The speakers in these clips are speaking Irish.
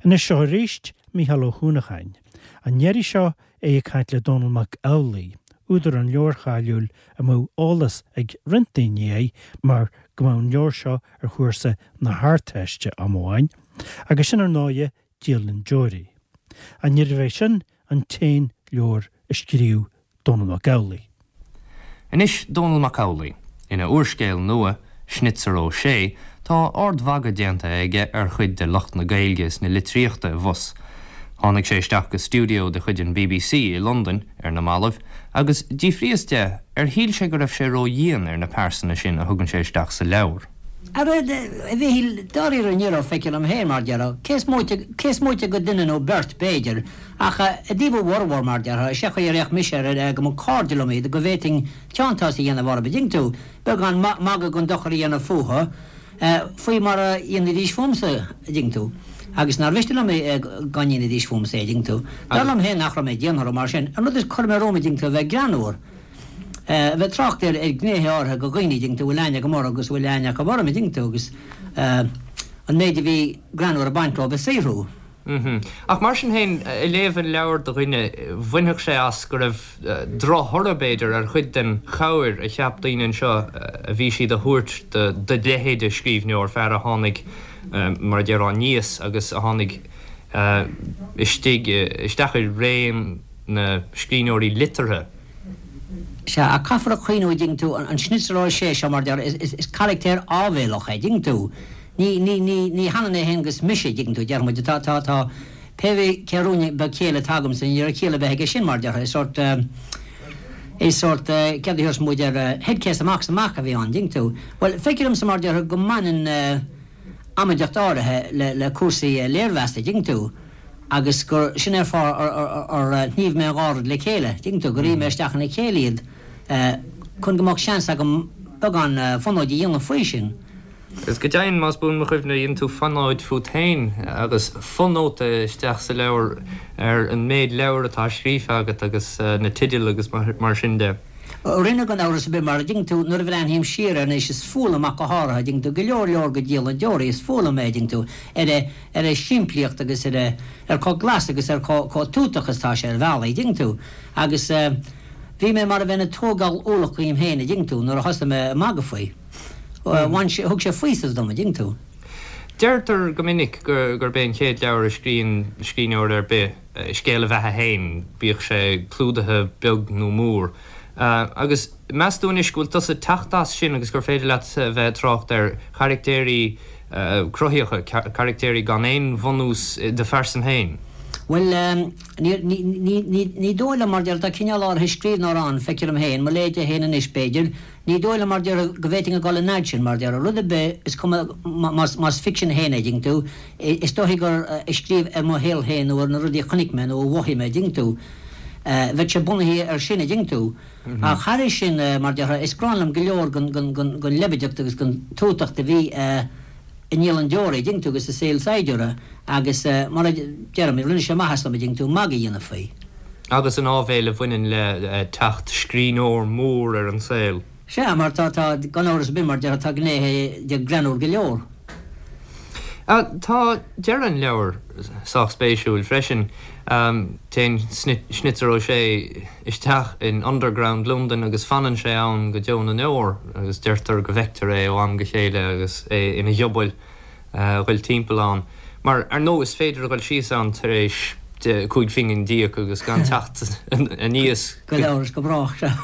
Anois seo arís Mícheál Ó hUanacháin. An iarraidh seo é ag caint le Dónall Mac Amhlaigh, údar an leabhair cháiliúil a mbeadh eolas ag roinnt daoine air mar go mbeadh an leabhar seo ar chúrsa na hArdteiste am amháin, agus sin ar ndóighe Dialann Deoraí. Ach níorbh é sin an t-aon leabhar a scríobh Dónall Mac Amhlaigh. Anois Dónall Mac Amhlaigh. Ina úrscéal nua, Schnitzer Ó Sé, tá ardmhagadh déanta aige ar chuid de lucht na Gaeilge is na litríochta i bhfus. Tháinig sé isteach go stiúideo de chuid an bbc i Londain ar na mallaibh agus d'fhiafraíos de ar shíl sé go raibh sé ródhian ar na pearsana sin a thugann sé isteach sa leabhar. Ara, a Mhichíl, dáiríre ní raibh, feictear dom féin, mar déarfá, cé is móite, cé is móite de dhuine nó beirt, b'fhéidir, ach i dtaobh a bhformhór, mar déarfá, is é an chaoi ar fhéach mise air, go mba cairde liom iad, go bhféadfainn teanntás a dhéanamh orthu, an dtuigeann tú, beagán magaidh gan dochar a dhéanamh fúthu, faoi mar a dhéanfaidís fúmsa, an dtuigeann tú, agus nár mhiste liom é dá ndéanfaidís fúmsa é, an dtuigeann tú. Dar liom féin nach raibh mé dian orthu mar sin. An rud is chuir mé romham, an dtuigeann tú, a bheith greannmhar. a bheith ag trácht ar ghnéithe áirithe de dhaoine, an dtuigeann tú, a bhfuil aithne agam orthu agus a bhfuil aithne acu orm, an dtuigeann tú, agus an méid a bhí greannmhar ag baint leo a saothrú. Ach mar sin féin, ag léamh an leabhair do dhuine, bhainfeadh sé as go raibh drochthoradh, b'fhéidir, ar chuid den chabhair a cheap daoine anseo a bhí siad a thabhairt do do leithéid de scríbhneoir, fear a tháinig, mar a déarfá, aníos agus a tháinig istigh, isteach i réim na scríbhneoirí liteartha. Sea, ach caithfear a chuimhniú, a dtuigeann tú, an Schnitzer Ó Sé seo, mar a déarfá, is carachtar áibhéalach é, a dtuigeann tú. Ní, ní, ní, ní hionann é féin agus mise, a dtuigeann tú, déarfaidh muid, tá, tá, tá, pé bith cé rún beag céille atá agamsa, ní raibh ciall ar bith aige sin, mar a déarfá, is sórt, is sórt, céard a thabharfas muid air, head case amach is amach a bhí ann, a dtuigeann tú. Bhuel, feictear domsa, mar a déarfá, go mbaineann amaideacht áirithe le, le cúrsaí léirmheasta, a dtuigeann tú. agus gur sin é an fáth ar shníomh mé an dhá rud le chéile, tuigeann tú, gur fhí mé isteach ina chéile iad chun go mbeadh seans agam beagán fonóid a dhéanamh faoi sin. Agus go deimhin, más buan mo chuimhne, dhein tú fonóid fút féin agus fonóta isteach sa leabhar ar an méid leabhar atá scríofa agat agus na teidil agus mar sin de. Rinne, gan amhras ar bith, mar a dtuigeann tú, nuair a bhreathnaím siar air anois, is fuath liom ach go háirithe, a dtuigeann tú, go leor leor de Dialann Deoraí, is fuath liom é, a dtuigeann tú, ar a, ar a shimplíocht agus ar a, ar chomh glas agus ar chomh, chomh tútach is atá sé ar bhealaí, a dtuigeann tú. Agus bhí mé mar a bheinn ag tógáil ualach dhíom féin, a dtuigeann tú, nuair a thosaigh mé ag magadh faoi. Bhain sé, thug sé faoiseamh dom, a dtuigeann tú. Deirtear go minic gurb é an chéad leabhar a scríonn scríbhneoir ar bith, scéal a bheatha féin, bíodh sé clúdaithe beag nó mór. Agus meas tú anois go bhfuil tusa ag teacht as sin agus gur féidir leat a bheith ag trácht ar charactéirí cruthaitheacha, caractéirí gan aon bhunús i do phearsan féin? Bhuel, ní dóigh liom, mar deir, tá cineál áirithe scríbhneora ann, feictear dom féin, mo leithéide féin anois, b'fhéidir, Ní dóigh liom, mar déarfá, go bhféadfainn a dhul an fhad sin, mar déarfá, rud ar bith, is cuma más ficsean féin é, dtuigeann tú, is dóichí gur ag scríobh ar mo shaol féin nó ar na rudaí a chonaic mé nó a mhothaigh mé, dtuigeann tú, bheadh sé bunaithe air sin, dtuigeann tú. Ach thairis sin, mar déarfá, is gráin liom go leor den leibideacht agus den tútacht a bhí i nDialann Deoraí, dtuigeann tú, agus i Saol Saighdiúra agus, mar a deirim, rinne sé maitheas dom, dtuigeann tú, magadh a dhéanamh faoi. Agus an áibhéil a bhaineann le teacht scríbhneoir mór ar an saol. Sea, mar tá, tá, gan amhras ar bith, mar déarfá, tá gnéithe de greannmhar go leor. Tá deireadh an leabhair sách spéisiúil freisin. Téann Schnitzer Ó Sé isteach in Underground Londain agus fanann sé ann go deo na ndeor agus deirtear go bhfeictear é ó am go chéile agus é ina ghiobail. a ghoil timpeall ann. Mar, ar ndóigh, is féidir a ghoil síos ann tar éis 5 phingin d'íoc agus gan teacht aníos. Gan amhras go brách, sea.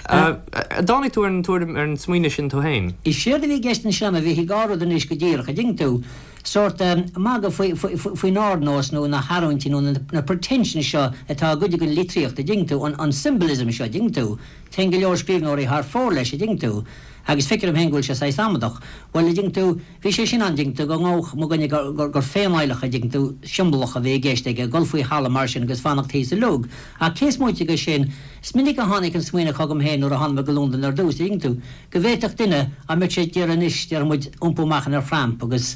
An dtáinig tú ar an tuairim, ar an smaoineamh sin tú féin? Is éard a bhí i gceist ansin, a Mhichíl, dhá rud anois go díreach, a dtuigeann tú, sórt magadh faoi, faoin ardnós nó na hargóintí nó na pretensions seo atá i gcuid den litríocht, a dtuigeann tú, an symbolism seo, a dtuigeann tú. Téann go leor scríbhneoirí thar fóir leis, a dtuigeann tú. Agus feictear dom féin go bhfuil sé saghas amadach. Bhuel, a dtuigeann tú, bhí sé sin ann, a dtuigeann tú, go ngabhadh mo dhuine gur, gur féinadhlacadh, a dtuigeann tú, siombalach a bhí i gceist aige, dul faoi thalamh mar sin agus fanacht thíos i log. Ach cé is móite de sin, is minic a tháinig an smaoineamh chugam féin nuair a tháinig mé go Londain ar dtús, a dtuigeann tú, go bhféadfadh duine, dá mbeadh sé ag iarraidh anois, déarfaidh muid, iompú amach ina thramp agus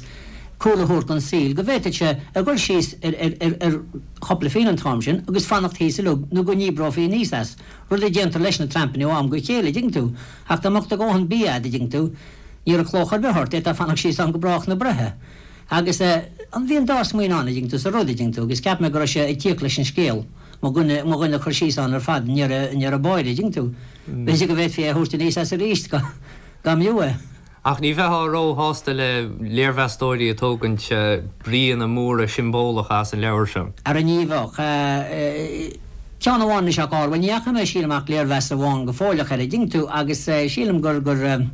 cúl a thabhairt don saol, go bhféadfadh sé a dhul síos ar, ar, ar, ar chúpla phingin an t-am sin agus fanacht thíos i log nó go ndíbreofaí aníos as. Rud a déantar leis na trampanna ó am go chéile, a dtuigeann tú. Ach dá mbeadh do dhóthain bia a'd, a dtuigeann tú, ní raibh clóch ar bith ort, d'fhéadfá fanacht síos ann go brách na breithe. Agus eh. An bhí an dá smaoineamh ann, a dtuigeann tú, sa rud, a dtuigeann tú, agus cheap mé go raibh sé ag tíocht leis an scéal, mo dhuine, mo dhuine a chur síos ann ar fad i ndeireadh, i ndeireadh báire, a dtuigeann tú. B'fhéidir go bhféadfaí é a thabhairt aníos as arís, dá, dá mb'fhiú é. Ach ní bheifeá róshásta le léirmheastóirí ag tógaint bríonna móra siombalácha as an leabhar seo. Ara ní bheadh. Ceann amháin anois ach bhuel ní fhaca mé sílim ach léirmheas amháin go fóilleach air, a dtuigeann tú, agus sílim gur, gur,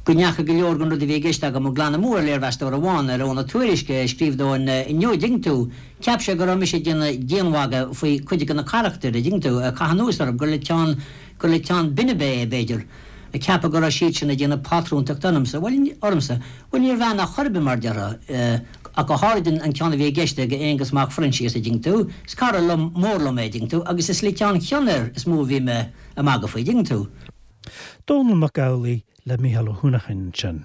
go ndeachaigh go leor den rud a bhí i gceist agam glan amú ar léirmheastóir amháin, ar Eoghan Ó Tuairisg, a scríobh dó inniu, a dtuigeann tú. Cheap sé go raibh mise ag déanamh dianmhagadh faoi chuid de na carachtair, a dtuigeann tú, ag caitheamh anuas orthu, gur le teann, gur le teann binbe é, b'fhéidir. ag ceapadh go raibh siad sin ag déanamh pátrúntachta ormsa, bhuel, ormsa, bhuel, níorbh ea in aon chor ar bith, mar déarfá, ach go háirid an ceann a bhí i gceist ag Aonghus Mac Phroinsias, a dtuigeann tú, is cara liom, mór liom é, a dtuigeann tú, agus is le teann cion air is mó a bhí mé ag magadh faoi, a dtuigeann tú. Dónall Mac Amhlaigh le Mícheál Ó hUanacháin ansin.